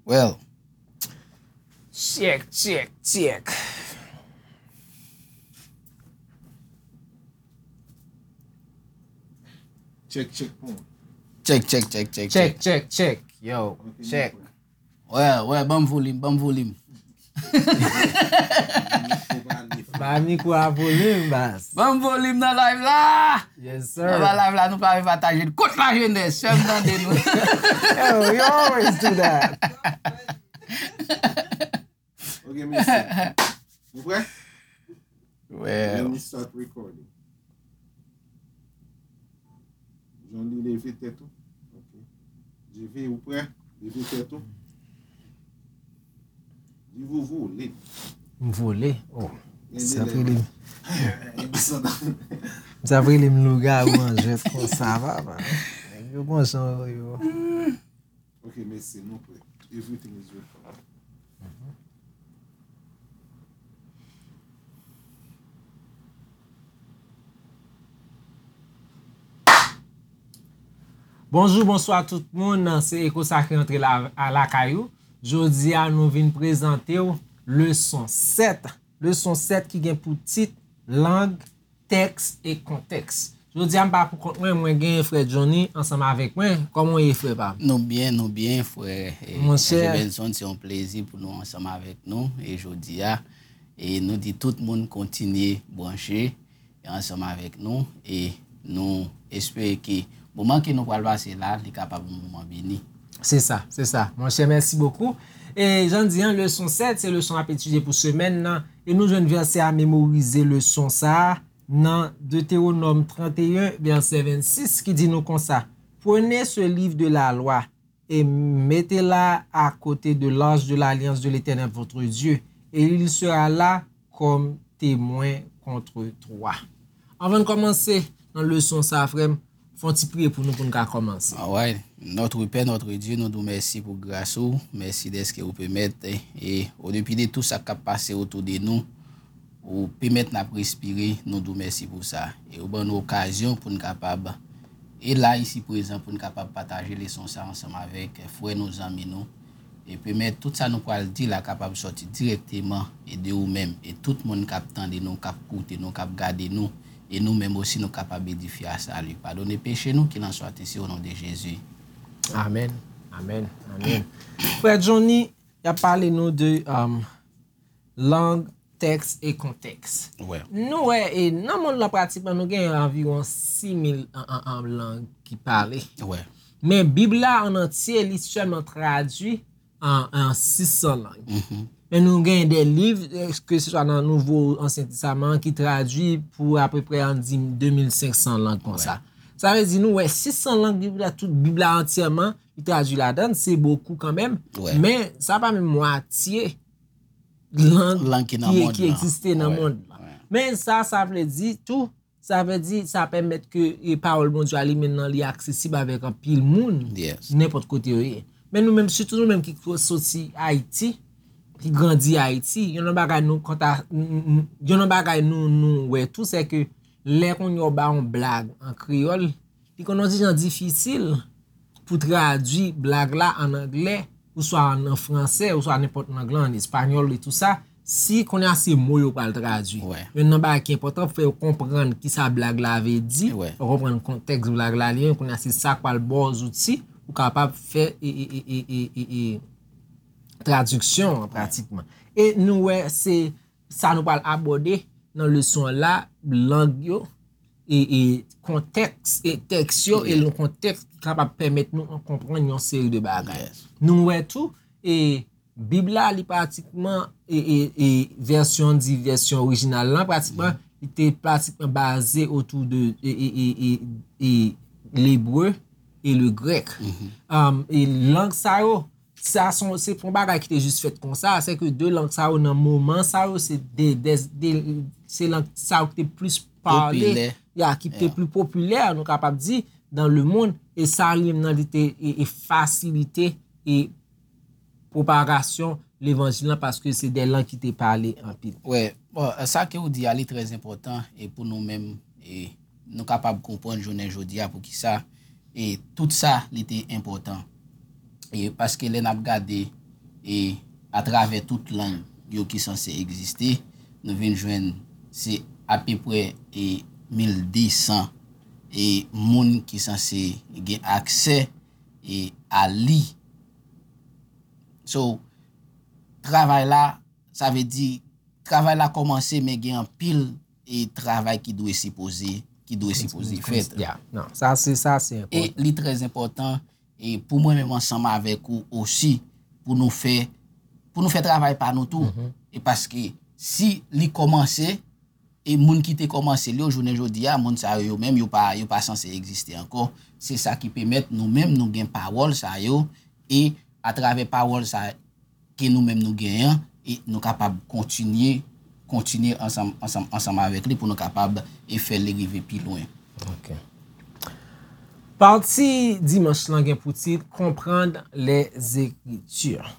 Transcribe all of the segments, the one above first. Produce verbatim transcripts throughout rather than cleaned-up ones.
Well. Check, check, check. Check, check, bon. Check, check, check, check, Check, check. Check, check. Yo, check. Wè, wè, ban m volim, ban m volim. Ba mikwo a volim, baz. Ban m volim nan live la. Yes, Nan ba sir. Live la, nou pa vle pataje l. Kot lajenès, fè m tande nou. Yo, you always do that. Ok, mesye. Nou prè? Well. Let me start recording. Johnny, leve tèt ou. Ok. J V, ou prè? Leve tèt ou. Di vovo, leve. M vole. Oh. Sa prele m. Sa prele m lougawou an jwèt konsa, papa. Nèg yo gon jan yo. Ok, mesye, nou prè. Everything is recorded. Bonjou, bonswa tout moun. Se Eko Sakre antre la, a lakay ou. Jodi a, nou vin prezante w leson sèt. Leson sèt ki gen pou tit lang, tèks e kontèks. Jodi a, m pa pou kont mwen, mwen gen frè Johnny ansanm avèk mwen. Kòman w ye, frè pa m? Nou byen, nou byen, frè. E, Monchè. Frè Benson, se yon plezi pou nou ansanm avèk nou. E jodi a, e nou di tout moun kontinye branche ansanm avèk nou. E nou espere ke moman ke nou pral pase la, li kapab yon moman beni. Se sa, se sa. Monchè, mèsi bokou. E jan di an, leson sèt, se leson n ap etidye pou semèn nan. E nou jwenn vèsè a memorize leson sa a nan Deutéronome trente et un, verset vingt-six, ki di nou konsa: Prenez ce livre de la loi et mettez-la à côté de l'arche de l'alliance de l'Éternel votre Dieu, et il sera là comme témoin contre toi. Anvan n kòmanse nan leson sa a, frè m, fè yon ti priye pou nou, pou n ka kòmanse. Alright. Notre Père, notre Dieu, nou di w mèsi pou gras ou. Mèsi dèske ou pèmèt, e, e, o depi de tou sa k ap pase otou de nou, ou pèmèt n ap respire, nou di w mèsi pou sa. E ou ban nou okazyon pou n kapab, e la isi prezan, pou n kapab pataje leson sa ansanm avèk frè nou, zanmi nou. E pèmèt tout sa nou pral di la kapab sòti dirèkteman e de ou menm. E tout moun k ap tande nou, k ap koute nou, k ap gade nou, e nou menm osi nou kapab edifye a sali. Padone peche nou, qu'il en soit ainsi au nom de Jésus. Amèn, amèn, amèn. Frè Johnny, y ap pale nou de um, lang, tèks e kontèks. Wè. Nou wè, e nan mond lan pratikman, nou gen anviwon sis mil an, an, an lang ki pale. Wè. Men Bib la an antye, li sèlman tradui an, an sis san lang. Men nou gen de liv, ke se swa nan Nouvo, Ansyen Testaman, ki tradui pou apeprè, ann di, de mil senk san lang konsa. Sa vle di, nou wè, sis san lang Bib la, tout Bib la antyèman, li tradui ladan, se bokou kanmenm. Wè. Men sa pa menm mwatye lang Lang ki nan ki, mond ki lan. Egziste nan Wè, mond lan. wè. Men sa, sa vle di tou, sa vle di, sa pèmèt ke, e, pawòl Bondye a li menm nan, li aksesib avèk anpil moun, Yes. nenpòt kote yo ye. Men nou menm, sitou nou menm ki soti Ayiti, ki grandi Ayiti, yon nan bagay nou konta, n- n- yon nan bagay nou, nou wè tou, se ke lè kounye a w ba yon blag an kreyòl, li konn yon ti jan difisil pou tradui blag la an anglè, oswa an, an fransè, oswa nenpòt lang lan, an espanyòl e tou sa, si kounye a se mo yo pral tradui. Wè. Youn nan bagay ki enpòtan, fè yo konprann ki sa blag la vle di, Wè. Yo konprann kontèks blag la li ye, kounye a se sa k pral ba w zouti, ou kapab fè e, e, e, e, e, e, e, tradiksyon an pratikman. E nou wè se sa nou pral abòde nan leson an la, lang yo, e, e kontèks, e tèks yo, e Yeah. yon kontèks ki kapab pèmèt nou konprann yon seri de bagay. Yes. Nou wè tou, e Bib la, li pratikman, e, e, e vèsyon, di vèsyon orijinal lan, pratikman, li te pratikman baze otou de, e, e, e, e, e lebre e le grèk. Um, e lang sa yo, sa son, se pa yon bagay ki te jis fèt konsa, se ke de lang sa yo nan moman sa yo, se de, de, de se lang sa yo ki te plis pale, Popilè. Ya, ki te Yeah. pli popilè, nou kapab di, dans le monde, e sa li menm nan li te e, e fasilite e pwopagasyon levanjil lan, paske se de lang ki te pale anpil. Wè, bon, sa ke ou di a, li trè enpòtan, e pou nou menm, e nou kapab konprann jounen jodi a poukisa, e tout sa, li te enpòtan. E paske lè n ap gade, e atravè tout lang yo ki sanse egziste, nou vin jwenn se apeprè e mil de san e moun ki sanse gen aksè e a li. So, travay la, sa vle di, travay la kòmanse, men gen anpil e travay ki dwe sipoze, ki dwe sipoze fèt. Yeah, non, sa se sa se E li trè enpòtan e pou mwen menm ansanm avèk ou osi pou nou fè pou nou fè travay pa nou tou. E paske si li kòmanse e moun ki te kòmanse li yo jounen jodi a, moun sa yo yo menm yo pa yo pa sanse egziste ankò. Se sa ki pèmèt nou menm nou gen pawòl sa yo e atravè pawòl sa ke nou menm nou genyen e nou kapab kontinye kontinye ansanm ansanm ansanm avèk li pou nou kapab e fè li rive pi lwen. Ok. Pati dimanch lan gen pou tit Comprendre les Écritures.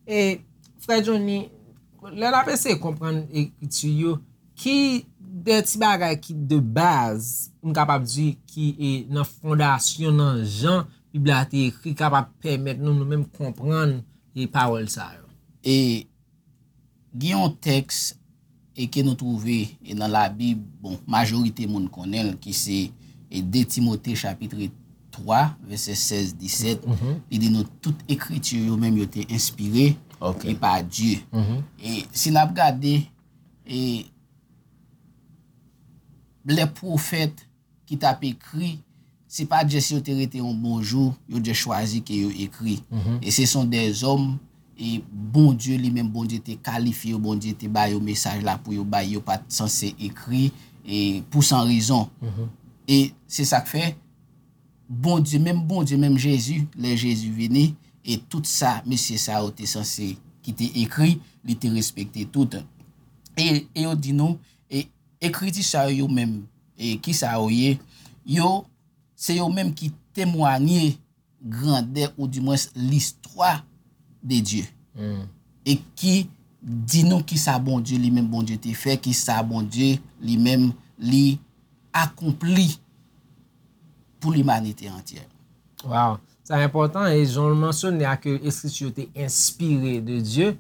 E frè Johnny, lè n ap eseye konprann ekriti yo, ki de ti bagay ki de baz, m kapab di, ki e nan fondasyon, nan jan Bib la te ekri, kapab pèmèt nou, nou menm, konprann e pawòl sa yo? E gen yon tèks e ke nou twouve e nan Labib, bon, majorite moun konnen l, ki se e de Timote chapit twa, vèsè sèz, disèt, li di nou tout ekriti yo menm yo te enspire e pa Dye. E si n ap gade e lè pwofèt ki t ap ekri, se pa just yo te rete yon bon jou, yo just chwazi ke yo ekri. E se son dèzòm e Bondye li menm, Bondye te kalifye yo, Bondye te ba yo mesaj la pou yo bay, yo pa t sanse ekri e pou san rezon. E se sa k fè Bondye, menm Bondye, menm Jezi, lè Jezi vini, e tout sa mesye sa yo te sanse ki te ekri, li te respekte tout. E, e yo di nou, e ekriti sa yo menm, e ki sa yo ye? Yo, se yo menm ki temwanye grandè oudimwens listwa de Dye. E ki di nou ki sa Bondye li menm Bondye te fè, ki sa Bondye li menm li akonpli pou limanite antyè. Wow! Sa enpòtan e jan w mansyone a ke ekriti yo te enspire de Dye,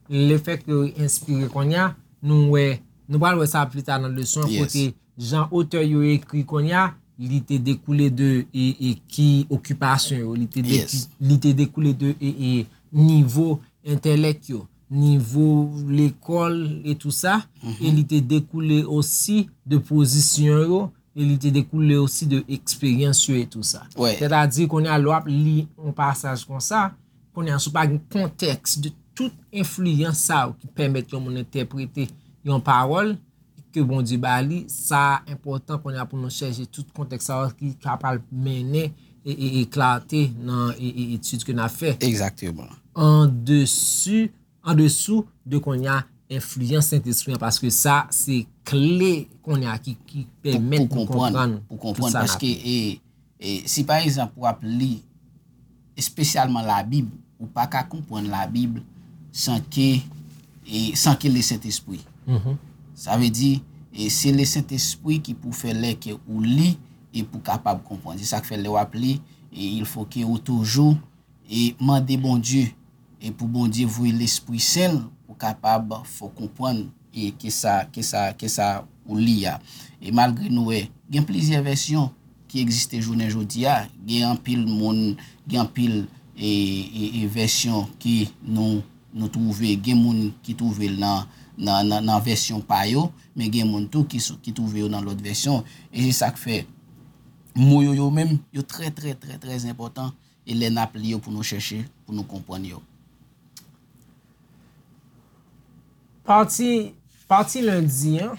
lefèt ke yo enspire kounye a, nou wè, nou pral wè sa pli ta nan leson an, kote jan otè yo ekri kounye a, li te dekoule de e, e ki okipasyon yo, li te, de, li te dekoule de e, e nivo entèlèk yo, nivo lekòl e tou sa, e li te dekoule osi de pozisyon yo, e li te dekoule osi de eksperyans yo e tou sa. Sètadi, kounye a, lè w ap li yon pasaj konsa, kounye a, si w pa gen kontèks de tout enfliyans sa yo ki pèmèt yon moun entèprete yon pawòl ke Bondye ba li, sa enpòtan kounye a pou nou chèche tout kontèks sa yo ki kapab mennen e, e, e klate nan e, e, etid ke n ap fè. Egzakteman. An desi, an desou de kounye a enfliyans Sentespri an, paske sa se kle kounye a ki, ki pèmèt nou konprann pou konprann, paske e, e, si pa egzanp w ap li espesyalman Labib, ou pa ka konprann Labib san ke, e, san ke Lesentespri. Sa vle di, e, se Lesentespri ki pou fè lè ke ou li e pou kapab konprann. Se sa k fè lè w ap li, e, il faut que ou toujou e mande Bondye, e pou Bondye voye Lespri Sen l pou kapab fè w konprann e ke sa, ke sa, ke sa ou li a. E malgre nou wè, gen plizyè vèsyon ki egziste jounen jodi a, gen anpil moun, gen anpil e, e, e vèsyon ki nou, nou twouve, gen moun ki twouve l nan, nan, nan, nan vèsyon pa yo, men gen moun tou ki, ki twouve yo nan lòt vèsyon. E se sa k fè mo yo, yo menm, yo trè, trè, trè, trè enpòtan. E lè n ap li yo pou nou chèche, pou nou konprann yo. Pati, pati lendi an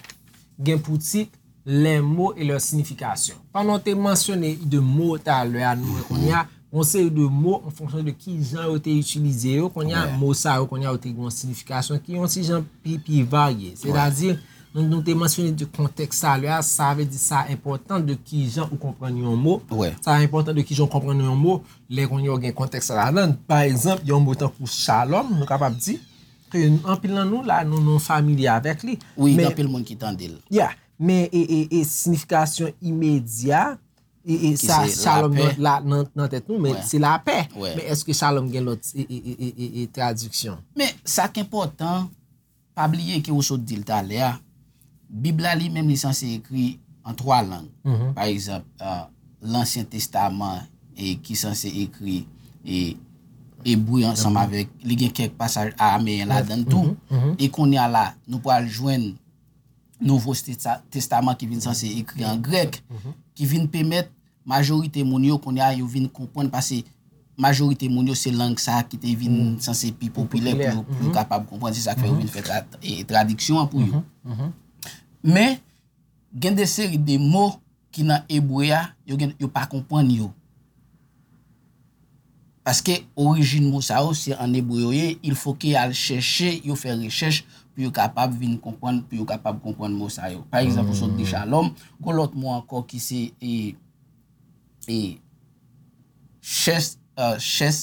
gen pou tit Les mots et leur signification. Pandan w te mansyone de mo talè a, nou wè kounye a, yon seri de mo an fonksyon de ki jan yo te itilize yo, kounye a, mo sa yo, kounye a, yo te gen yon siyifikasyon ki yon ti jan pi, pi varye. Sètadi, nou, nou te mansyone de kontèks talè a, sa vle di sa enpòtan de ki jan ou konprann yon mo. Sa enpòtan de ki jan ou konprann yon mo. Lè kounye a w gen kontèks sa ladan, pa egzanp, yon mo tankou shalom, nou kapab di ke anpil nan nou la, nou, nou familye avèk li. Wi, gen anpil moun ki tande l. Ya, men e, e, e siyifikasyon imedya e, e, sa, shalom nan, la, nan, nan tèt nou, men se lapè. Men èske shalom gen lòt e, e, e, e, e, e tradiksyon? Men sa k enpòtan, pa bliye ke ou sot di l talè a, Bib la li menm li sanse ekri an twa lang. Pa egzanp, Lansyen Testaman e ki sanse ekri e ebre ansanm avèk, li gen kèk pasaj arameyen ladan l tou. E kounye a la, nou pral jwenn Nouvo Testa- Testaman ki vin sanse ekri an grèk, ki vin pèmèt majorite moun yo kounye a yo vin konprann, paske majorite moun yo se lang sa a ki te vin sanse pi popilè pou yo, pou yo kapab konprann. Se sa k fè yo vin fè tra- e, tradiksyon an pou yo. Men, gen de seri de mo ki nan ebre a, yo gen, yo pa konprann yo. Paske orijin mo sa yo, se an ebre yo ye, il faut que y al chèche, yo fè rechèch pou yo kapab vin konprann, pou yo kapab konprann mo sa yo. Pa egzanp, ou sot di shalom, gon lòt mo ankò ki se e, e, chèch, e, chèch,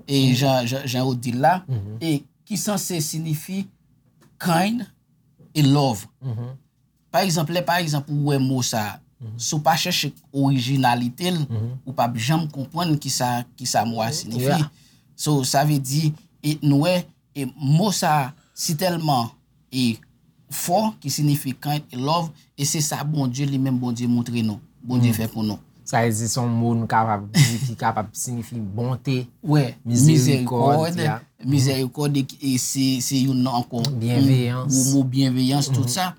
e, jan, jan, jan yo di l la, e ki sanse sinifi kind e love. Pa egzanp, lè pa egzanp ou wè mo sa, si w pa chèche orijinalite l, ou p ap janm konprann kisa, kisa mo a sinifi. So, sa vle di, e nou wè, e mo sa si tèlman e fò, ki sinifi kind e love, e se sa Bondye li menm, Bondye montre nou, Bondye fè pou nou. Sa vle di se yon mo nou kapab di ki kapab sinifi bonte, mizerikòd, mizerikòd, e, e se, se youn nan ankò yon gwo mo, byenveyans, tout sa.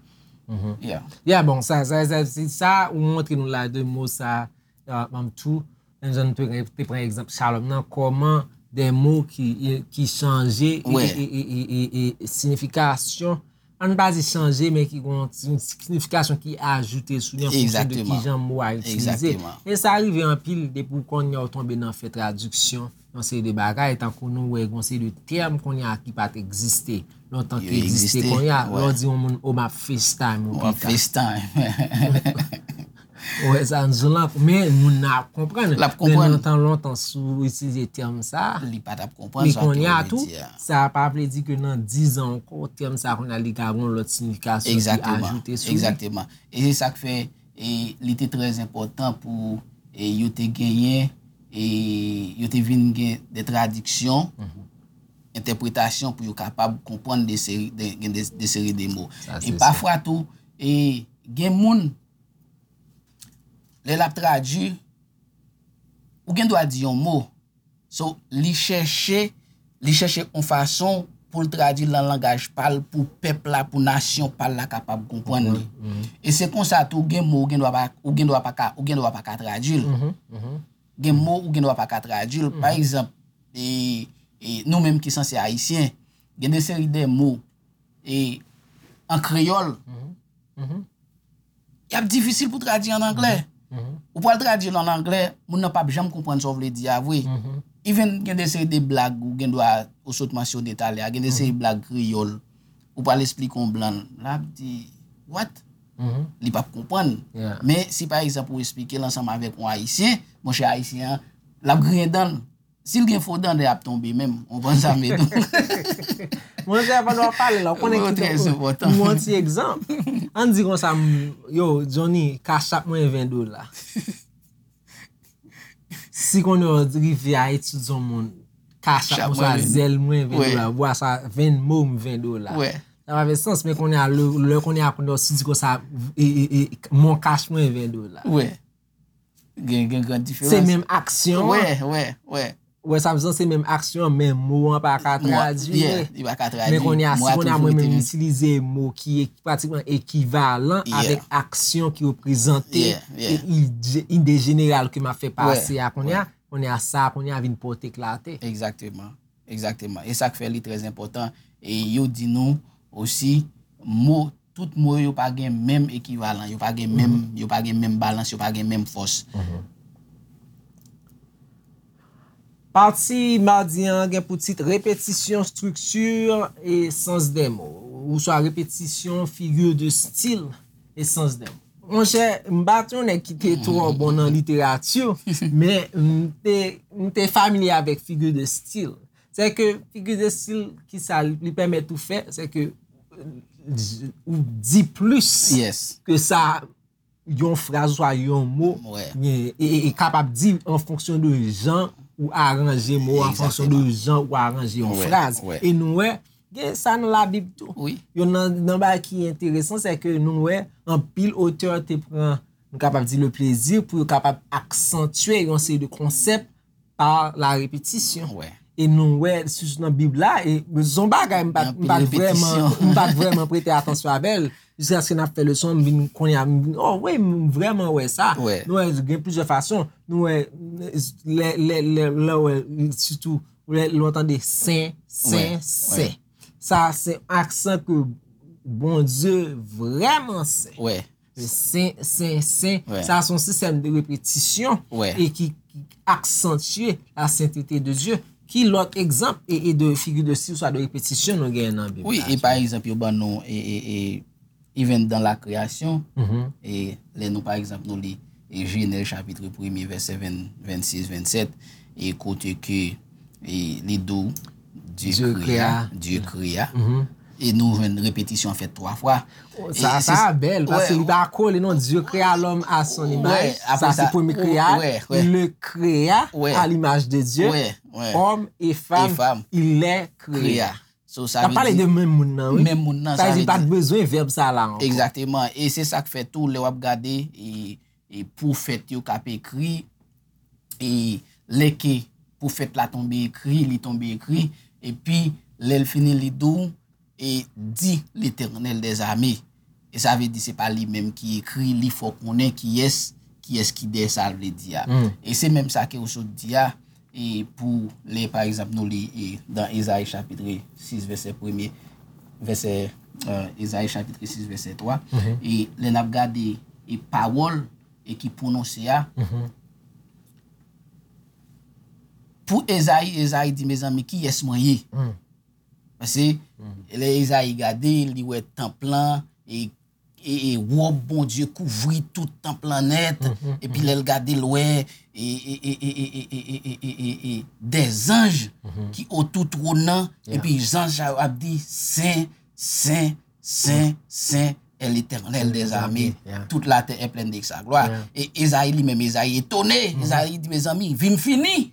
Yeah. Yeah, bon, sa, sa, sa, se sa ou montre nou la de mo sa, uh, um, tou, menm jan nou te, te pran egzanp shalom nan, kòman de mo ki, ki chanje e, e, e, e, e, e siyifikasyon, ann pa di chanje, men ki gon yon sinifikasyon ki ajoute sou li an fonksyon de ki jan mo a itilize. E sa rive anpil depi w konnen w tonbe nan fè tradiksyon yon seri de bagay, tankou nou wè gon seri de tèm kounye a ki pa t egziste lontan ki egziste kounye a. Lè w di yon moun, "O, m ap FaceTime ou pita." Ou wè sa, nou lan, men moun nan ap konprann. L ap konprann. Men lontan, lontan, si w itilize tèm sa, li pa t ap konprann sa ke w vle di a. Sa pa vle di ke nan diz an ankò, tèm sa kounye a li ka gon lòt siyifikasyon ki ajoute sou li. Egzakteman. E se sa k fè, e, li te trè enpòtan pou, e, yo te genyen, e, yo te vin gen de tradiksyon, entèpretasyon pou yo kapab konprann de seri de, gen de, de seri de mo. E pafwa tou, e, gen moun, lè l ap tradui, ou gen dwa di yon mo, so, li chèche, li chèche yon fason pou l tradui l nan langaj pa l, pou pèp la, pou nasyon pa l la kapab konprann li. E se konsa tou, gen mo ou gen dwa pa, ou gen dwa pa ka, ou gen dwa pa ka tradui l. Gen mo ou gen dwa pa ka tradui l. Pa egzanp, e, e nou menm ki sanse ayisyen, gen de seri de mo, e, an kreyòl, y ap difisil pou tradui an anglè. Ou pral tradui l an anglè, moun nan p ap janm konprann sa w vle di a vre. Even gen de seri de blag ou gen dwa, ou sot mansyone talè a, gen de seri blag kreyòl, ou pral esplike yon blan, l ap di, "What?" Li p ap konprann. Men si pa egzanp ou esplike l ansanm avèk yon ayisyen, monchè, ayisyen an, l ap griyen dan l. Si l gen fo dan, l ap tonbe menm. Ou konprann sa m vle di w? Monchè, pandan w ap pale la, ou konnen ki pou yon ti egzanp. Ann di konsa, m, yo, Johnny, cash app mwen ven dola. Si konnen w rive a etidye yon moun, cash app mwen sa, zèl mwen ven dola, bwa sa, Venmo m ven dola. Sa pa fè sans, men konnen a, lè, lè konnen a, konnen w si di konsa, e, e, e, mon cash mwen ven dola. Gen, gen gran diferans. Se menm aksyon an. Wè, wè, wè. Wè sa m di w, se menm aksyon an, men mo an pa ka tradui. Li pa ka tradui. Men kounye a, si kounye a mwen menm m itilize mo ki e- pratikman ekivalan avèk aksyon ki reprezante e ide, ide jeneral ke m ap fè pase a kounye a, kounye a sa a kounye a vin pòte klate. Egzakteman. Egzakteman. E sa k fè li trè enpòtan. E yo di nou osi, mo, tout mo yo pa gen menm ekivalan, yo pa gen menm, yo pa gen menm balans, yo pa gen menm fòs. Pati madi an gen pou tit repetisyon, estrikti e sans dè mo, oswa repetisyon, figi de stil e sans dè mo. Monchè, m pa t yon nèg ki te twò bon nan literati, men m te, m te familye avèk figi de stil. Se ke figi de stil, ki sa li, li pèmèt ou fè, se ke ou di plis ke sa yon fraz oswa yon mo, Wè. e, e, e kapab di an fonksyon de jan ou aranje mo, an fonksyon de jan ou aranje yon Wè, fraz. wè. E nou wè, gen sa nan Labib tou. Wi. Yon nan, nan bagay ki enteresan, se ke nou wè anpil otè te pran, nou kapab di, le plezi pou yo kapab aksantye yon seri de konsèp pa la repetisyon. Wè. E nou wè, sou nan Bib la, e se yon bagay m pa t Gen anpil m pa t vrèman repetisyon. m pa t vrèman prete atansyon avè l. Jiskaske n ap fè leson, m vin konnen, m vin, oh wi, m vrèman wè sa. Wè. Nou wè, gen plizyè fason. Nou wè, lè, lè, lè, lè, wè, sitou, lè, lè w tande sen, sen, Wè, sen. Sa, se aksan ke Bondye vrèman sen. Wè. Sen, sen, sen. Wè. Sa, se yon sistèm de repetisyon Wè. e ki, ki aksantye la sentete de Dye. Ki lòt egzanp e, e de figi de stil, swa de repetisyon nou genyen nan Bib Wi, la? E pa egzanp, yo ban nou, e, e, e, even dans la création, Mhm. e lè nou, pa egzanp, nou li e Jenèz chapit premye, vèsè ven, vennsis, vennsèt, e kote ke e, li di w, Dieu Dieu créa, créa. Dieu créa. Mhm. E nou jwenn repetisyon an fèt twa fwa. Sa, E sa se- bèl, paske wè, li pa kole non, Dieu créa l'homme à son wè, image. Apre Sa, se sa, premye krea. wè, wè. Il le créa Wè. à l'image de Dieu. Wè, wè. Homme et femme, Et femme. Il les créa. Créa. So, sa N ap vle pale di- de menm moun nan, wi. Menm moun nan, Sa sa vle di vle pa t di- bezwen vèb sa la ankò. Egzakteman. E se sa k fè tou, lè w ap gade, e, e pwofèt yo k ap ekri, e lè ke pwofèt la tonbe ekri, li tonbe ekri, epi lè l fini li di w, e di Letènèl dèzame. E sa vle di se pa li menm ki ekri, li fè w konnen kiyès, kiyès ki dèyè sa l vle di a. Mm. E se menm sa ke w sot di a, e pou lè, pa egzanp, nou li e, dan Ezayi chapit sis, vèsè premye, vèsè, e, Ezayi chapit sis, vèsè twa, Mhm. e lè n ap gade e pawòl e ki pwononse a, Mhm. pou Ezayi, Ezayi di, mezanmi, kiyès mwen ye? Mm. Paske lè Ezayi gade, li wè tanp lan, e, e, e wòb Bondye kouvri tout tanp lan nèt, Mhm, epi lè l gade, l wè e, e, e, e, e, e, e, e, e, e, e, dèzanj Mhm. ki otou twòn nan, Yeah. epi zanj sa yo ap di, sen, sen, sen, sen, est l'Éternel des armées. Yeah. Toute la terre est pleine de sa gloire. Yeah. E Ezayi li menm, Ezayi etone. Ezayi di, mezanmi, vi m fini.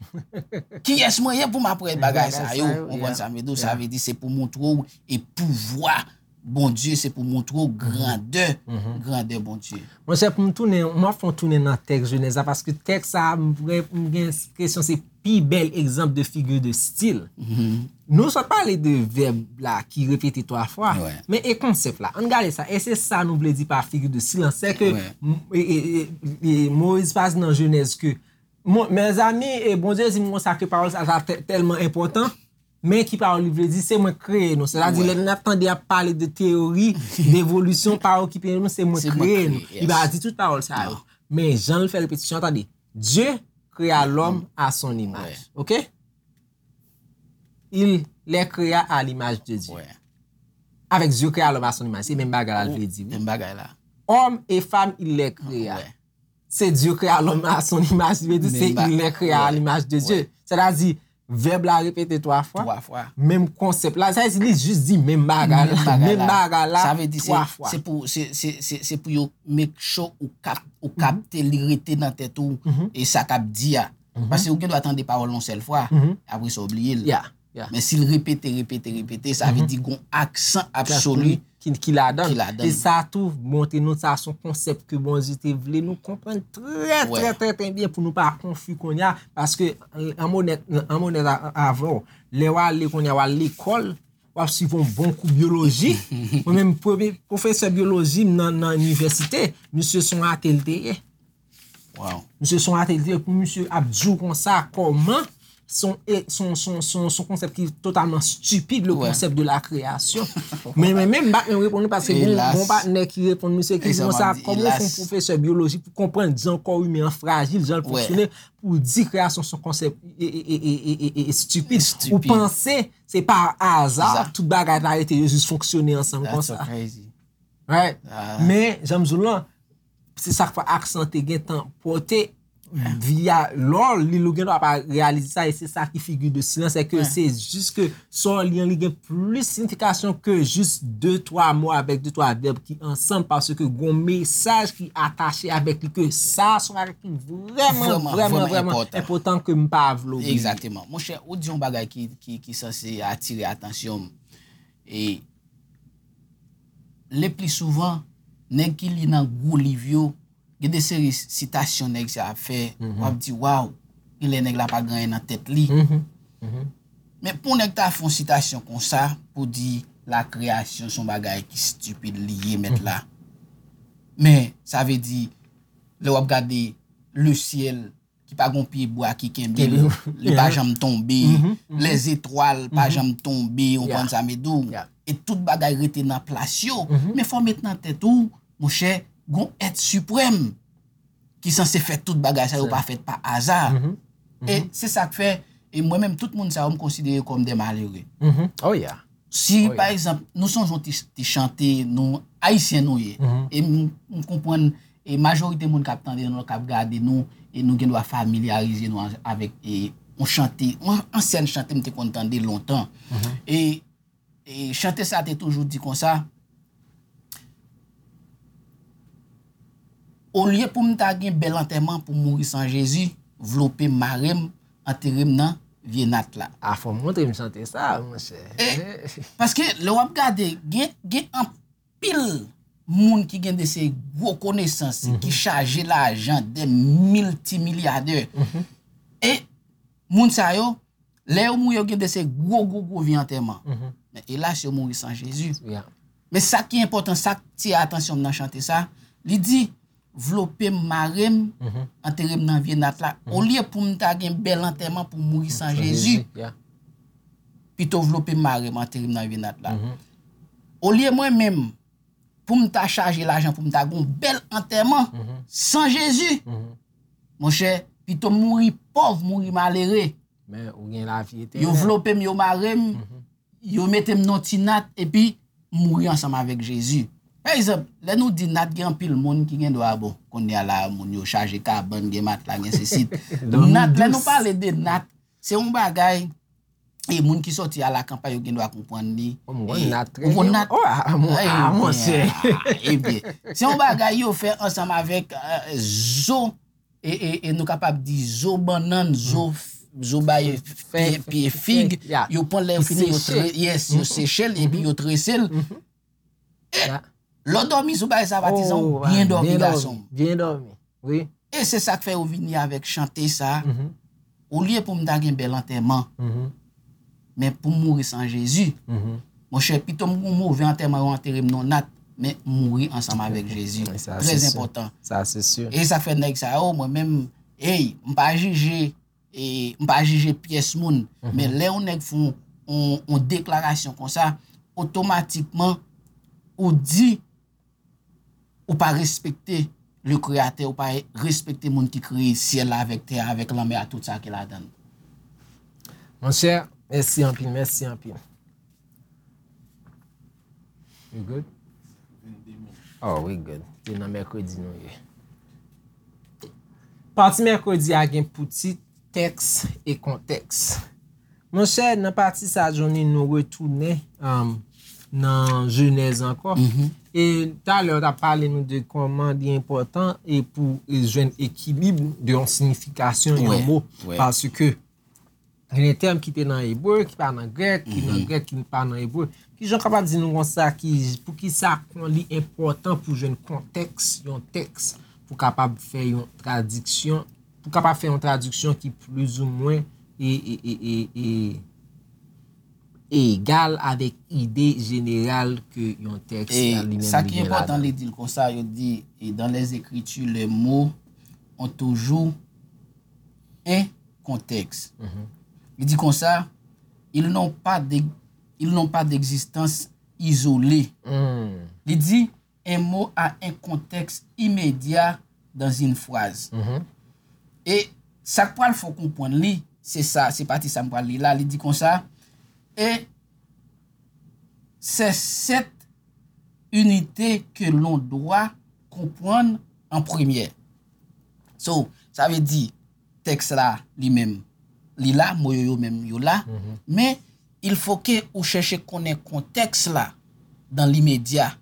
Kiyès mwen ye pou m ap wè bagay sa yo? Bagay sa yo, Ou konprann yeah. Sa m vle di w? Sa Yeah. vle di se pou montre w e pouvwa Bondye, se pou montre w grandè, Mhm. grandè Bondye. Monchè, pou m tounen, m ap fè yon tounen nan tèks Jenèz la, paske tèks sa a, m vre, m gen enpresyon se pi bèl egzanp de figi de stil. Mhm. Nou sot pale de vèb la ki repete twa fwa, Wè. Men e konsèp la? Ann gade sa. E se sa nou vle di pa figi de stil lan. Se ke Wè. m- e, e, e, e, Moyiz pa di nan Jenèz ke, mon, mezanmi, e Bondye di m konsa ke pawòl sa, sa tè- tèlman enpòtan, men ki pawòl li vle di, se mwen k kreye nou. Sètadi, Wè. Lè n ap tande ap pale de teyori devolisyon, pawòl ki kreye nou, se mwen Se k mwen kreye k nou. kreye, Li pa yes. di tout pawòl sa yo. Non. Men jan l fè repetisyon, tande, Dieu créa l'homme à son image. Wè. Ok? Il les créa à l'image de Dieu. Wè. Avèk Dieu créa l'homme à son image. Se menm bagay la l vle di, wi. Menm bagay la. Homme et femme, il les créa. Wè. Se Dieu créa l'homme à son image, li vle di se Menm ba- il les créa à wè. l'image de Dieu. Wè. Sètadi, vèb la repete twa fwa. Twa fwa. Menm konsèp la, sa vle di li jis di menm bagay la. Menm bagay Menm la. bagay la Sa vle di se, twa fwa. se pou, se, se, se, se pou yo make sure ou kap, ou kapte li rete nan tèt ou Mhm. e sa k ap di a. Mhm. Paske ou gen dwa tande pawòl yon sèl fwa, Mhm. apre sa ou bliye l. Yeah, yeah. Men si l repete, repete, repete, sa vle Mhm. di gon aksan absoli. Ki, ki ladan. Ki ladan. E sa tou montre nou sa se yon konsèp ke Bondye te vle nou konprann trè, Wè. Trè, trè, trè byen pou nou pa konfi kounye a. Paske, an m onèt, an m onèt a- avè w, lè w ale kounye a, w al lekòl, w ap swiv yon bon kou byoloji. Mwen menm, premye pwofesè byoloji m nan, nan inivèsite, misye se yon ate l te ye. Wow. Misye se yon ate l te ye, pou misye ap di w konsa, kòman, se yon, e, se yon, se yon, se yon, se yon konsèp ki totalman stipid, le Wè. Concept de la création. Men, men, men, m pa t menm reponn li paske gon, Elas. Gon patnè ki reponn misye ki E di sa m konsa, ap di, kòman w fè yon elas. Pwofesè byoloji pou konprann jan kò imen an frajil, jan l Wè. fonksyone, pou w di kreyasyon se yon konsèp e, e, e, e, e, e, e stipid. Stipid. Ou panse se pa aza, Aza. Tout bagay la rete yo jis fonksyone ansanm That's so konsa. Crazy. Right? Ah. Men, jan m di w lan, se sa k fè aksan te gentan pote via lè w li l ou gen dwa pa reyalize sa, e se sa ki figi de silans, se ke se jis ke sa w li an li gen plis siyifikasyon ke jis de twa mo avèk de twa vèb ki ansanm, paske gon mesaj ki atache avèk li, ke sa se yon bagay ki vrèman, vrèman, vrèman enpòtan ke m pa vle bliye. Egzakteman. Monchè, ou di yon bagay ki, ki, ki sanse atire atansyon m. E le pli souvan, nèg ki li nan gwo liv yo, gen de seri sitasyon nèg sa ap fè, w ap di, waw, genlè nèg la pa gen anyen nan tèt li. Men pou nèg ta fè yon sitasyon konsa, pou di lakreyasyon se yon bagay ki stipid li ye, mèt la. Men, sa vle di, lè w ap gade le ciel, ki pa gon pye bwa ki kenbe l, li pa janm tonbe, les étoiles pa janm tonbe, ou konprann sa m di w? E tout bagay rete nan plas yo. Men fò w met nan tèt ou, monchè, gon èt siprèm ki sanse fè tout bagay sa yo pa fèt pa aza. E se sa k fè, e mwen menm, tout moun sa yo, m konsidere kòm de malere. Si, pa egzanp, nou sonje yon ti, ti chante, nou, Ayisyen nou ye. E m, m konprann, e majorite moun k ap tande nou, k ap gade nou, e nou gen dwa familyarize nou an, avèk, e, yon chante, yon ansyèn chante m te konn tande lontan. E, e chante sa te toujou di konsa, olye pou m ta gen bèl antèman pou mouri san Jezi, vlope m, mare m, antere m nan vye nat la. A, fò w montre m chante sa, monchè. E, paske lè w ap gade, gen, gen anpil moun ki gen de se gwo konesans, ki chaje lajan, de miltimilyadè. E moun sa yo, lè yo mouri, yo gen de se gwo, gwo, gwo vye antèman. Men elas, yo mouri san Jezi. Men sa ki enpòtan, sa k tire atansyon m nan chante sa, li di, vlope m, mare m, antere m nan vye nat la. Olye pou m ta gen bèl antèman pou mouri san Jezi, pito vlope m, mare m, antere m nan vye nat la. Olye mwen menm, pou m ta chaje lajan, pou m ta gon bèl antèman san Jezi, monchè, pito m mouri pòv, mouri malere. Men ou gen lavi etènèl. Yo vlope m, yo mare m, yo mete m nan ti nat, epi m mouri ansanm avèk Jezi. Pa egzanp, lè nou di nat, gen anpil moun ki gen dwa, bon, kounye a la, moun yo chaje kabann, gen matla, gen sesi. Nat, lè nou pale de nat, se yon bagay, e moun ki sòti a lakanpay, yo gen dwa konprann li. Ou konn nat trè byen. Ou konn nat? Oh, ah, mon, ah, monchè. Ebyen, se yon bagay yo fè ansanm avèk, euh, zo, e, e, e nou kapab di zo bannann, zo, zo bay pye, pye fig, yo pran lè yo fini, yo tre-, yes, yo seche l, epi yo trese l. E lè w dòmi sou bagay sa, patizan, ou byen dòmi, gason m. Byen dòmi, wi. E se sa k fè yo vini avèk chante sa, olye pou m ta gen bèl antèman, men pou m mouri san Jezi. Monchè, pito m gon move antèman, yo antere m nan nat, men m mouri ansanm avèk Jezi. Trè enpòtan. Sa se si. E sa k fè nèg sa yo, mwen menm, ey, m pa jije, e m pa jije pyès moun, men lè yon nèg fè yon, yon, yon deklarasyon konsa, otomatikman, ou di, ou pa respekte le Kreyatè, ou pa respekte moun ki kreye syèl la avèk tè a, avèk lanmè a, tout sa ki ladan l. Monchè, mèsi anpil, mèsi anpil. We good? Oh, we good. Se nan mèkredi nou ye. Pati mèkredi a gen pou tit tèks e kontèks. Monchè, nan pati sa, Johnny, nou retounen, um, nan Jenèz ankò. E talè, w t ap pale nou de kòman li enpòtan e pou, e, jwenn ekilib de yon siyifikasyon yon mo. Paske gen de tèm ki te nan ebre, ki pa nan grèk, ki nan grèk, ki pa nan ebre. Kijan w kapab di nou konsa, ki, poukisa kon li enpòtan pou jwenn kontèks yon tèks, pou kapab fè yon tradiksyon, pou kapab fè yon tradiksyon ki plizoumwen e, e, e, e, e, egal avèk ide jeneral ke yon tèks li menm li gen ladan l. E sa ki enpòtan, li di l konsa, yo di, e dans les Écritures, les mots ont toujours un contexte. Li di konsa, ils n'ont pas de, ils n'ont pas d'existence isolée. Li di, un mot a un contexte immédiat dans une phrase. E sa k pral fè w konprann li, se sa, se pati sa m pral li la, li di konsa, et c'est cette unité que l'on doit comprendre en premier. So, Sa vle di, tèks la li menm, li la, mo yo yo menm yo la, men il faut que ou chèche konnen kontèks la dans l'immédiat.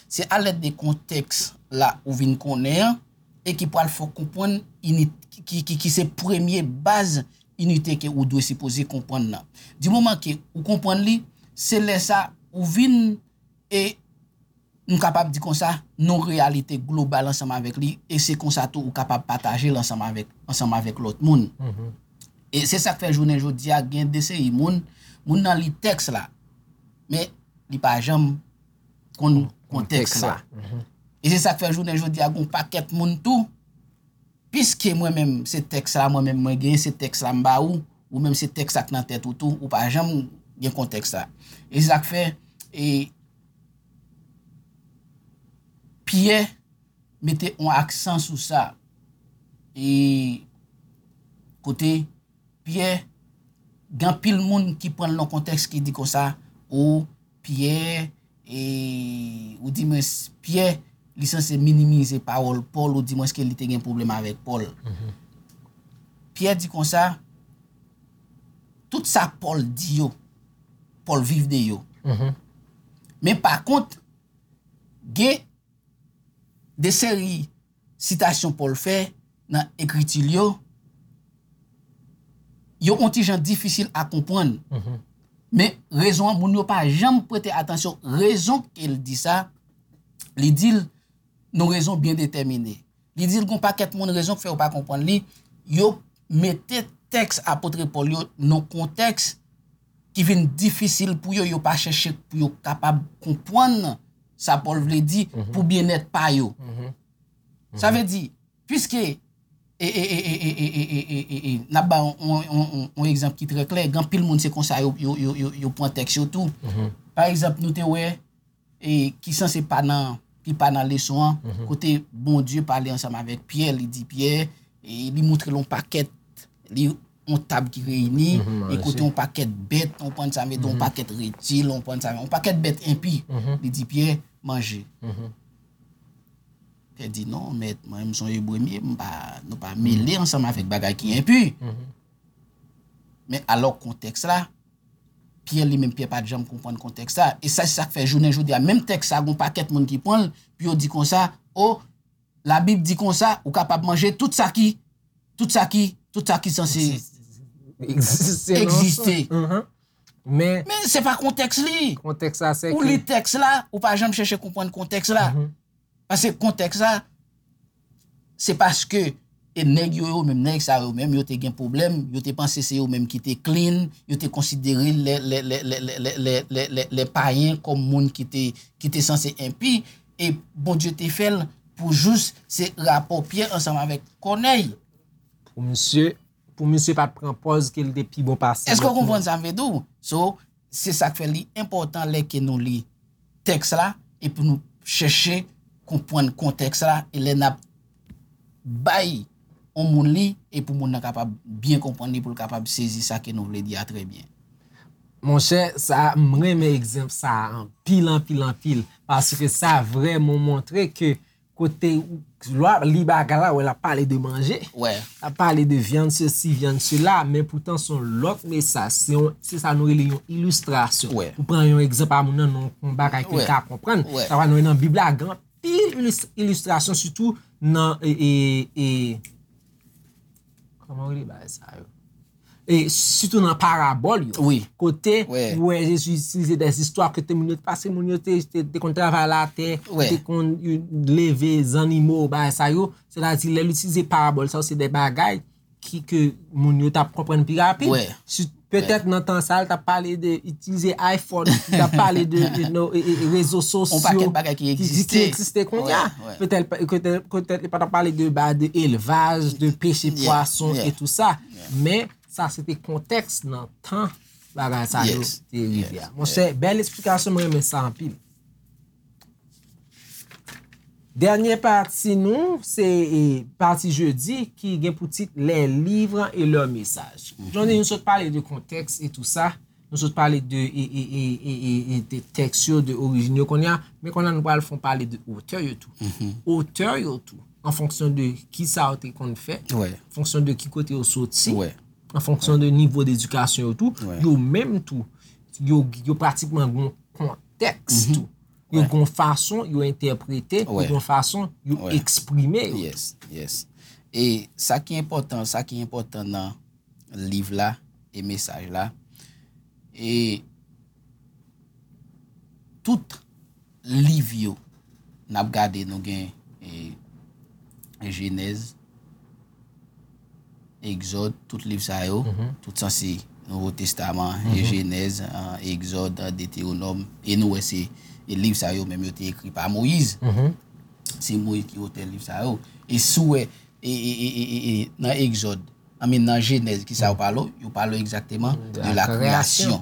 Se alèd de kontèks la ou vin konnen an e ki pral fè w konprann init, ki, ki, ki se premye baz inite ke ou dwe sipoze konprann nan. Di moman ke ou konprann li, se lè sa ou vin e nou kapab di konsa, nan yon reyalite global ansanm avèk li, e se konsa tou ou kapab pataje l ansanm avèk, ansanm avèk lòt moun. E se sa k fè jounen jodi a gen de seri moun, moun nan li tèks la, men li pa janm konn kontèks la. E se sa k fè jounen jodi a gen yon pakèt moun tou, piske mwen menm se tèks la, mwen menm mwen genyen, se tèks la m ba ou, ou menm se tèks la k nan tèt ou tou, ou pa janm gen kontèks la. E se sa k fè, e, Pyè mete yon aksan sou sa. E kote Pyè, gen anpil moun ki pran l nan kontèks ki di konsa, o, Pyè, e, ou di mwen, Pyè, li sanse minimize pawòl Pòl, ou di mwen ke li te gen pwoblèm avèk Pòl. Pyè di konsa, tout sa Pòl di yo, Pòl viv de yo. Men pa kont, gen de seri sitasyon Pòl fè nan ekriti l yo, yo on ti jan difisil a konprann. Men rezon an, moun yo pa janm prete atansyon. Rezon ke l di sa, li di l nan rezon byen detèmine. Li di l gon pakèt moun rezon k fè yo pa konprann li, yo mete tèks apot Pòl yo nan kontèks ki vin difisil pou yo, yo pa chèche pou yo kapab konprann sa Pòl vle di pou byennèt pa yo. Sa vle di, piske, e, e, e, e, e, e, e, e, e, n ap ba yon, yon, yon, yon, yon egzanp ki trè klè, gen anpil moun se konsa yo, yo, yo, yo, yo pran tèks yo tou. Pa egzanp, nou te wè, e, ki sanse pa nan, ki pa nan leson an, kote Bondye pale ansanm avèk Pyè, li di Pyè, e, li montre l yon pakèt, li yon tab ki reyini, e kote yon pakèt bèt, ou konprann sa m vle di, yon pakèt reptil, ou konprann sa, yon pakèt bèt enpi. Li di Pyè, manje. Pyè di, non, mèt, mwen, m se yon ebre m ye, m pa, nou pa mele ansanm avèk bagay ki enpi. Men alò kontèks la, Pyè li menm, Pyè pa t janm konprann kontèks sa. E sa, se sa k fè jounen jodi a, menm tèks sa, gon pakèt moun ki pran l, pou yo di konsa, o, Labib di konsa, ou kapab manje tout sa ki, tout sa ki, tout sa ki sanse egziste. Men, men se pa kontèks li. Kontèks la, se ou ke li tèks la, ou pa janm chèche konprann kontèks la. Paske kontèks la, se paske, e, nèg yo, yo menm, nèg sa yo menm, yo te gen pwoblèm, yo te panse se yo menm ki te clean, yo te konsidere lè, lè, lè payen kòm moun ki te, ki te sanse enpi, e Bondye te fè l pou jous se rapò Pyè ansanm avèk Kònèy. Pou misye, pou misye pa t pran pòz ke l te pi bon pase lòt moun. Èske w konprann sa m vle di w? So, se sa k fè li enpòtan lè ke nou li tèks la, epi nou chèche konprann kontèks la, e lè n ap bay yon moun li, e pou moun nan kapab byen konprann li, pou l kapab sezi sa ke nou vle di a trè byen. Monchè, sa, m renmen egzanp sa a anpil, anpil, anpil, paske sa vrèman montre ke kote ou, lè w ap li bagay la, wè l ap pale de manje, l ap pale de vyann sesi, vyann sela, men poutan se yon lòt mesaj, se yon, se sa nou rele yon ilistrasyon. Ou pran yon egzanp a moun nan, nan yon bagay ke l ka konprann, sa va nou nan Bib la, gen anpil ilis-, ilistrasyon, sitou nan, e, e, e, kòman w rele bagay sa yo? E sitou nan parabòl yo. Kote ou wè Jezi itilize dè zistwa kote moun yo te pase, moun yo te, te, te konn travay latè, te konn, yo, leve zannimo, bagay sa yo. Sètadi, lè l itilize parabòl sa yo, se dè bagay ki, ke moun yo t ap konprann pi rapid. Si, petèt nan tan sa, l t ap pale de itilize iPhone, li t ap pale de, de, no, e, e, e, rezo sosyo ki, ki, ki egziste kounye a. Petèt, petèt, petèt li pa t ap pale de, ba, de elvaj, de peche pwason e tou sa. Men, sa se te kontèks nan tan bagay sa yo te rive a. Monchè, bèl esplikasyon, mwen renmen sa anpil. Dènye pati nou, se, e, pati jedi ki gen pou tit Les livres et leur message. Jodi, nou sot pale de kontèks e tou sa. Nou sot pale de, e, e, de tèks yo, de orijin yo kounye a. Men kounye a nou pral fè yon pale de otè yo tou. Otè yo tou. an fonksyon de kisa yo te konn fè, Wè. an fonksyon de ki kote yo soti, Wè. an fonksyon de nivo dedikasyon yo tou, Wè. yo menm tou, yo, yo pratikman gen yon kontèks tou. Yo Wè. gen yon fason yo entèprete, yo Wè. gen yon fason yo Wè. eksprime yo. Yes, yes. E sa ki enpòtan, sa ki enpòtan nan liv la e mesaj la, e tout liv yo n ap gade, nou gen e, Jenèz, Egzòd, tout liv sa yo, tout sanse Nouvo Testaman, e Jenèz, an, Egzòd, an, Detewonòm, e nou wè se e liv sa yo menm yo te ekri pa Moyiz. Se Moyiz ki otè liv sa yo. E si w wè e, e, e, e, e, e, nan Egzòd, I mean, nan Jenèz, ki sa yo pale? Yo pale egzakteman de la création.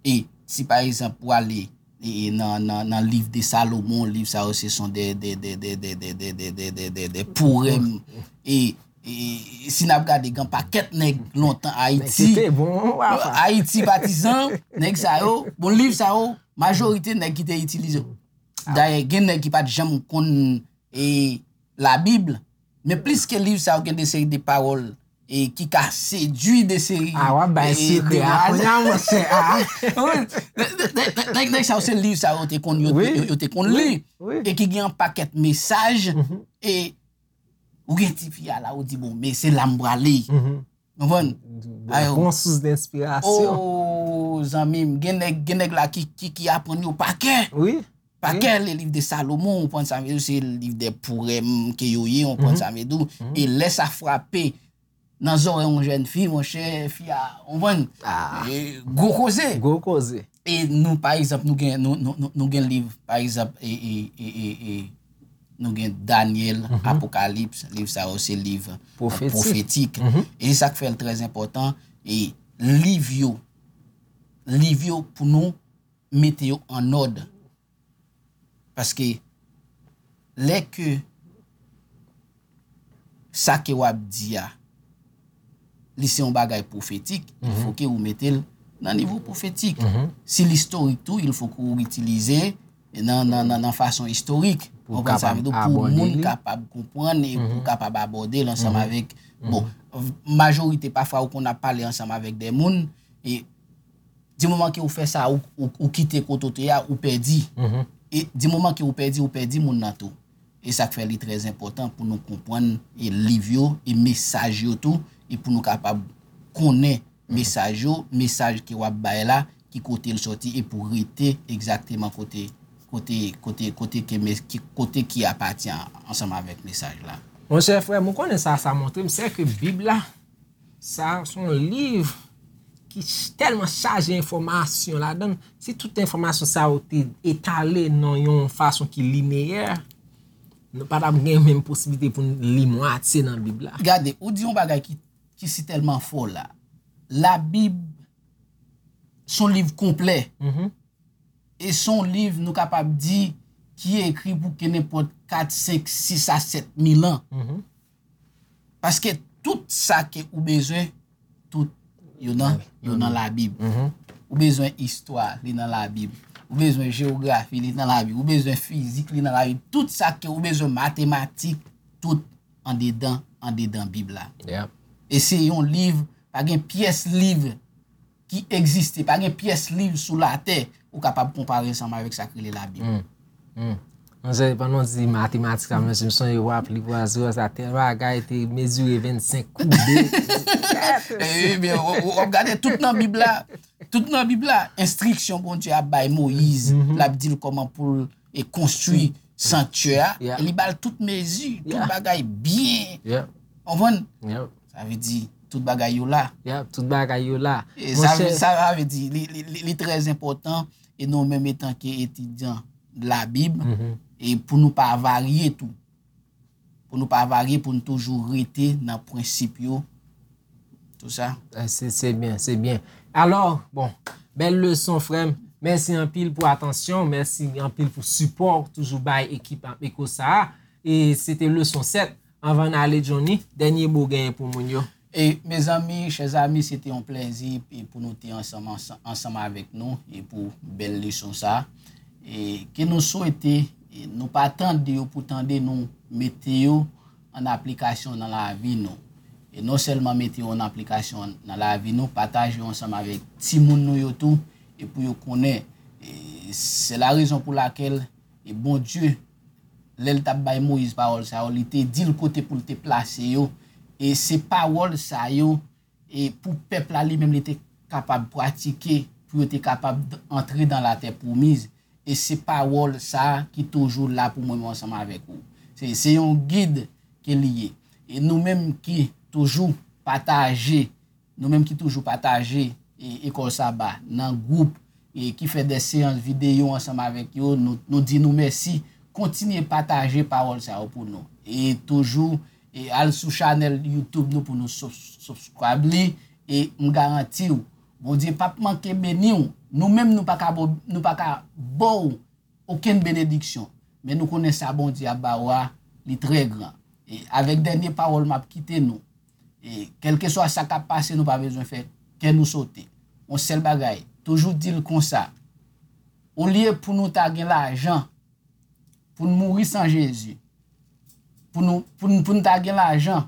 E si pa egzanp ou ale e, e nan, nan, nan liv de Salomon, liv sa yo se son de, de, de, de, de, de, de, de, de, de, de poèm. E, e si n ap gade, gen pakèt nèg lontan Ayiti, Kite bon, wafa. Ayiti patizan, nèg sa yo, bon, liv sa yo, majorite nèg ki te itilize. Dayè, gen nèg ki pa t janm konn e, Labib, men plis ke liv sa yo gen de seri de pawòl e ki ka sedui de seri Ah, w ap bay e, sekrè a demwazèl. Kounye a, monchè. Ah. Nèg, nèg, nèg, nèg sa yo se liv sa yo te konn yo, Wi. yo, yo te konn li. Wi. E ki gen yon pakèt mesaj e ou gen ti fi a la, ou di, bon, men se la m prale. Konprann? Ayo. Bon sous denspirasyon. Oh, zanmi m, gen nèg, gen nèg la ki, ki, ki aprann yo pa kè. Wi. Pa kè le liv de Salomon, ou konprann sa m vle di, se liv de poèm ke yo ye, ou konprann sa m vle di. E lè sa frape nan zòrèy yon jèn fi, monchè, fi a, ou konprann? Ah. E, gwo koze. Gwo koze. E nou, pa egzanp, nou gen, nou, nou, nou, nou gen liv, pa egzanp, e, e, e, e, e, nou gen Danyèl, Apokalips, liv sa yo se liv e, Pwofetik. Pwofetik. E se sa k fè l trè enpòtan, e liv yo, liv yo pou nou mete yo an òd. Paske lè ke sa ke w ap di a, li se yon bagay pwofetik, il faut que ou mete l nan nivo pwofetik. Si l istorik tou, il faut que ou itilize nan, nan, nan, nan fason istorik. Pou Konprann sa m vle di, kapab pou abòde moun li. Kapab konprann e pou kapab abòde l ansanm avèk, bon, majorite pafwa ou konn ap pale ansanm avèk de moun, e di moman ke ou fè sa, ou, ou, ou kite kote w te a, ou pèdi. E di moman ke ou pèdi, ou pèdi moun nan tou. E sa k fè li trè enpòtan pou nou konprann e liv yo, e mesaj yo tou, e pou nou kapab konnen mesaj yo, mesaj ke w ap bay la, ki kote l sòti, e pou rete egzakteman kote, kote, kote, kote ke mes-, ki, kote ki apatyen ansanm avèk mesaj la. Monchè frè m, ou konnen sa, sa montre m, se ke Bib la, sa se yon liv ki ch-, tèlman chaje enfòmasyon ladan l. Si tout enfòmasyon sa yo te etale nan yon fason ki lineyè, nou pa t ap gen menm posiblite pou n li mwatye nan Bib la. Gade, ou di yon bagay ki, ki si tèlman fò la. Labib se yon liv konplè. E se yon liv, nou kapab di, ki ekri pou ke nenpòt kat, senk, sis a sèt mil an. Paske tout sa ke ou bezwen, tout yo nan, yo nan Labib. Ou bezwen istwa, li nan Labib. Ou bezwen jewografi, li nan Labib. Ou bezwen fizik, li nan Labib. Tout sa ke ou bezwen, matematik, tout andedan, andedan Bib la. Yep. E se yon liv, pa gen pyès liv ki egziste, pa gen pyès liv sou latè ou kapab konpare ansanm avèk sa k rele Labib. Manzè, pandan w di matematik la, menm si m sonje w ap li pwa zero, sa tèl bagay te mezire vennsenk koube. Ebyen, w, w, w ap gade tout nan Bib la, tout nan Bib la, enstriksyon Bondye ap bay Moyiz, l ap di l kòman pou l e konstwi sanktyè a, Yeah. e li ba l tout mezi, tout Yeah. bagay byen. Yeah, Konprann? yeah, Sa vle di, tout bagay yo la. yeah, tout bagay yo la. E sa, Monchè, sa vle di, li, li, li, li trè enpòtan, e nou menm etanke etidyan Labib, Mhm. e pou nou pa varye tou. Pou nou pa varye, pou nou toujou rete nan prensip yo. Tout sa. Eh, se, se byen, se byen. Alò, bon, bèl leson, frè m. Mèsi anpil pou atansyon, mèsi anpil pou sipò w toujou bay ekip Eko sa a. E se te leson sèt. Anvan n ale, Johnny, dènye mo genyen pou moun yo. E, mezanmi, chè zami, se te yon plèzi e pou nou te ansanm, ansanm, ansanm avèk nou e pou bèl leson sa. E ke nou swete, e nou pa tande yo pou tande nou, mete yo an aplikasyon nan lavi nou. E non sèlman mete yo an aplikasyon nan lavi nou, pataje yo ansanm avèk timoun nou yo tou, e pou yo konnen. E se la rezon pou lakèl, e Bondye, lè l t ap bay Moyiz pawòl sa yo, li te di l kote pou l te plase yo. E se pawòl sa yo, e pou pèp la li menm li te kapab pratike, pou yo te kapab antre dan latè pwomiz. E se pawòl sa a ki toujou la pou mwen, mwen ansanm avèk ou. Se, se yon gid ke li ye. E nou menm ki toujou pataje, nou menm ki toujou pataje e, ekòl saba nan gwoup, e ki fè de seyans videyo ansanm avèk yo, nou, nou di nou mèsi. Kontinye pataje pawòl sa yo pou nou. E toujou, e al sou chanèl YouTube nou pou nou sub- subscribe li. E m garanti w, Bondye p ap manke beni w. Nou menm nou pa ka bo- nou pa ka ba w okenn benediksyon. Men nou konnen sa Bondye ap ba w a, li trè gran. E avèk dènye pawòl m ap kite nou. E kèlkeswa sa k ap pase, nou pa bezwen fè kè nou sote. Yon sèl bagay, toujou di l konsa. Olye pou nou ta gen lajan, pou n mouri san Jezi, pou nou, pou n, pou n ta gen lajan,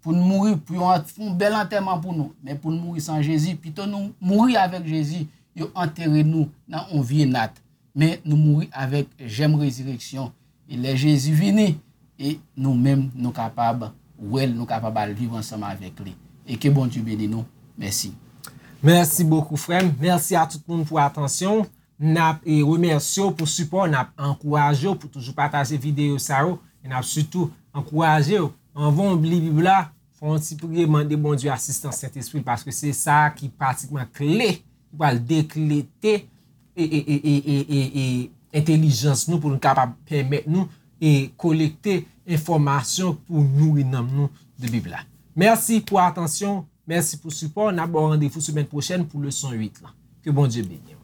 pou n mouri, pou yo an- fè yon bèl antèman pou nou, men pou n mouri san Jezi, pito nou mouri avèk Jezi, yo antere nou nan yon vye nat, men nou mouri avèk jèm rezireksyon. E lè Jezi vini, e nou menm, nou kapab wè l, nou kapab al viv ansanm avèk li. E ke Bondye beni nou. Mèsi. Mèsi bokou, frè m. Mèsi a tout moun pou atansyon. N ap e, remèsye w pou sipò w, n ap ankouraje w pou toujou pataje videyo sa yo, e n ap sitou ankouraje w, anvan w li Bib la, fè yon ti priye, mande Bondye asistans Sentespri l, paske se sa ki pratikman kle ki pral deklete e, e, e, e, e, e, e entelijans nou pou nou kapab pèmèt nou e kolekte enfòmasyon pou nouri nanm nou de Bib la. Mèsi pou atansyon, mèsi pou sipò. N ap ba w randevou semèn pwochèn pou leson uit lan. Ke Bondye beni w.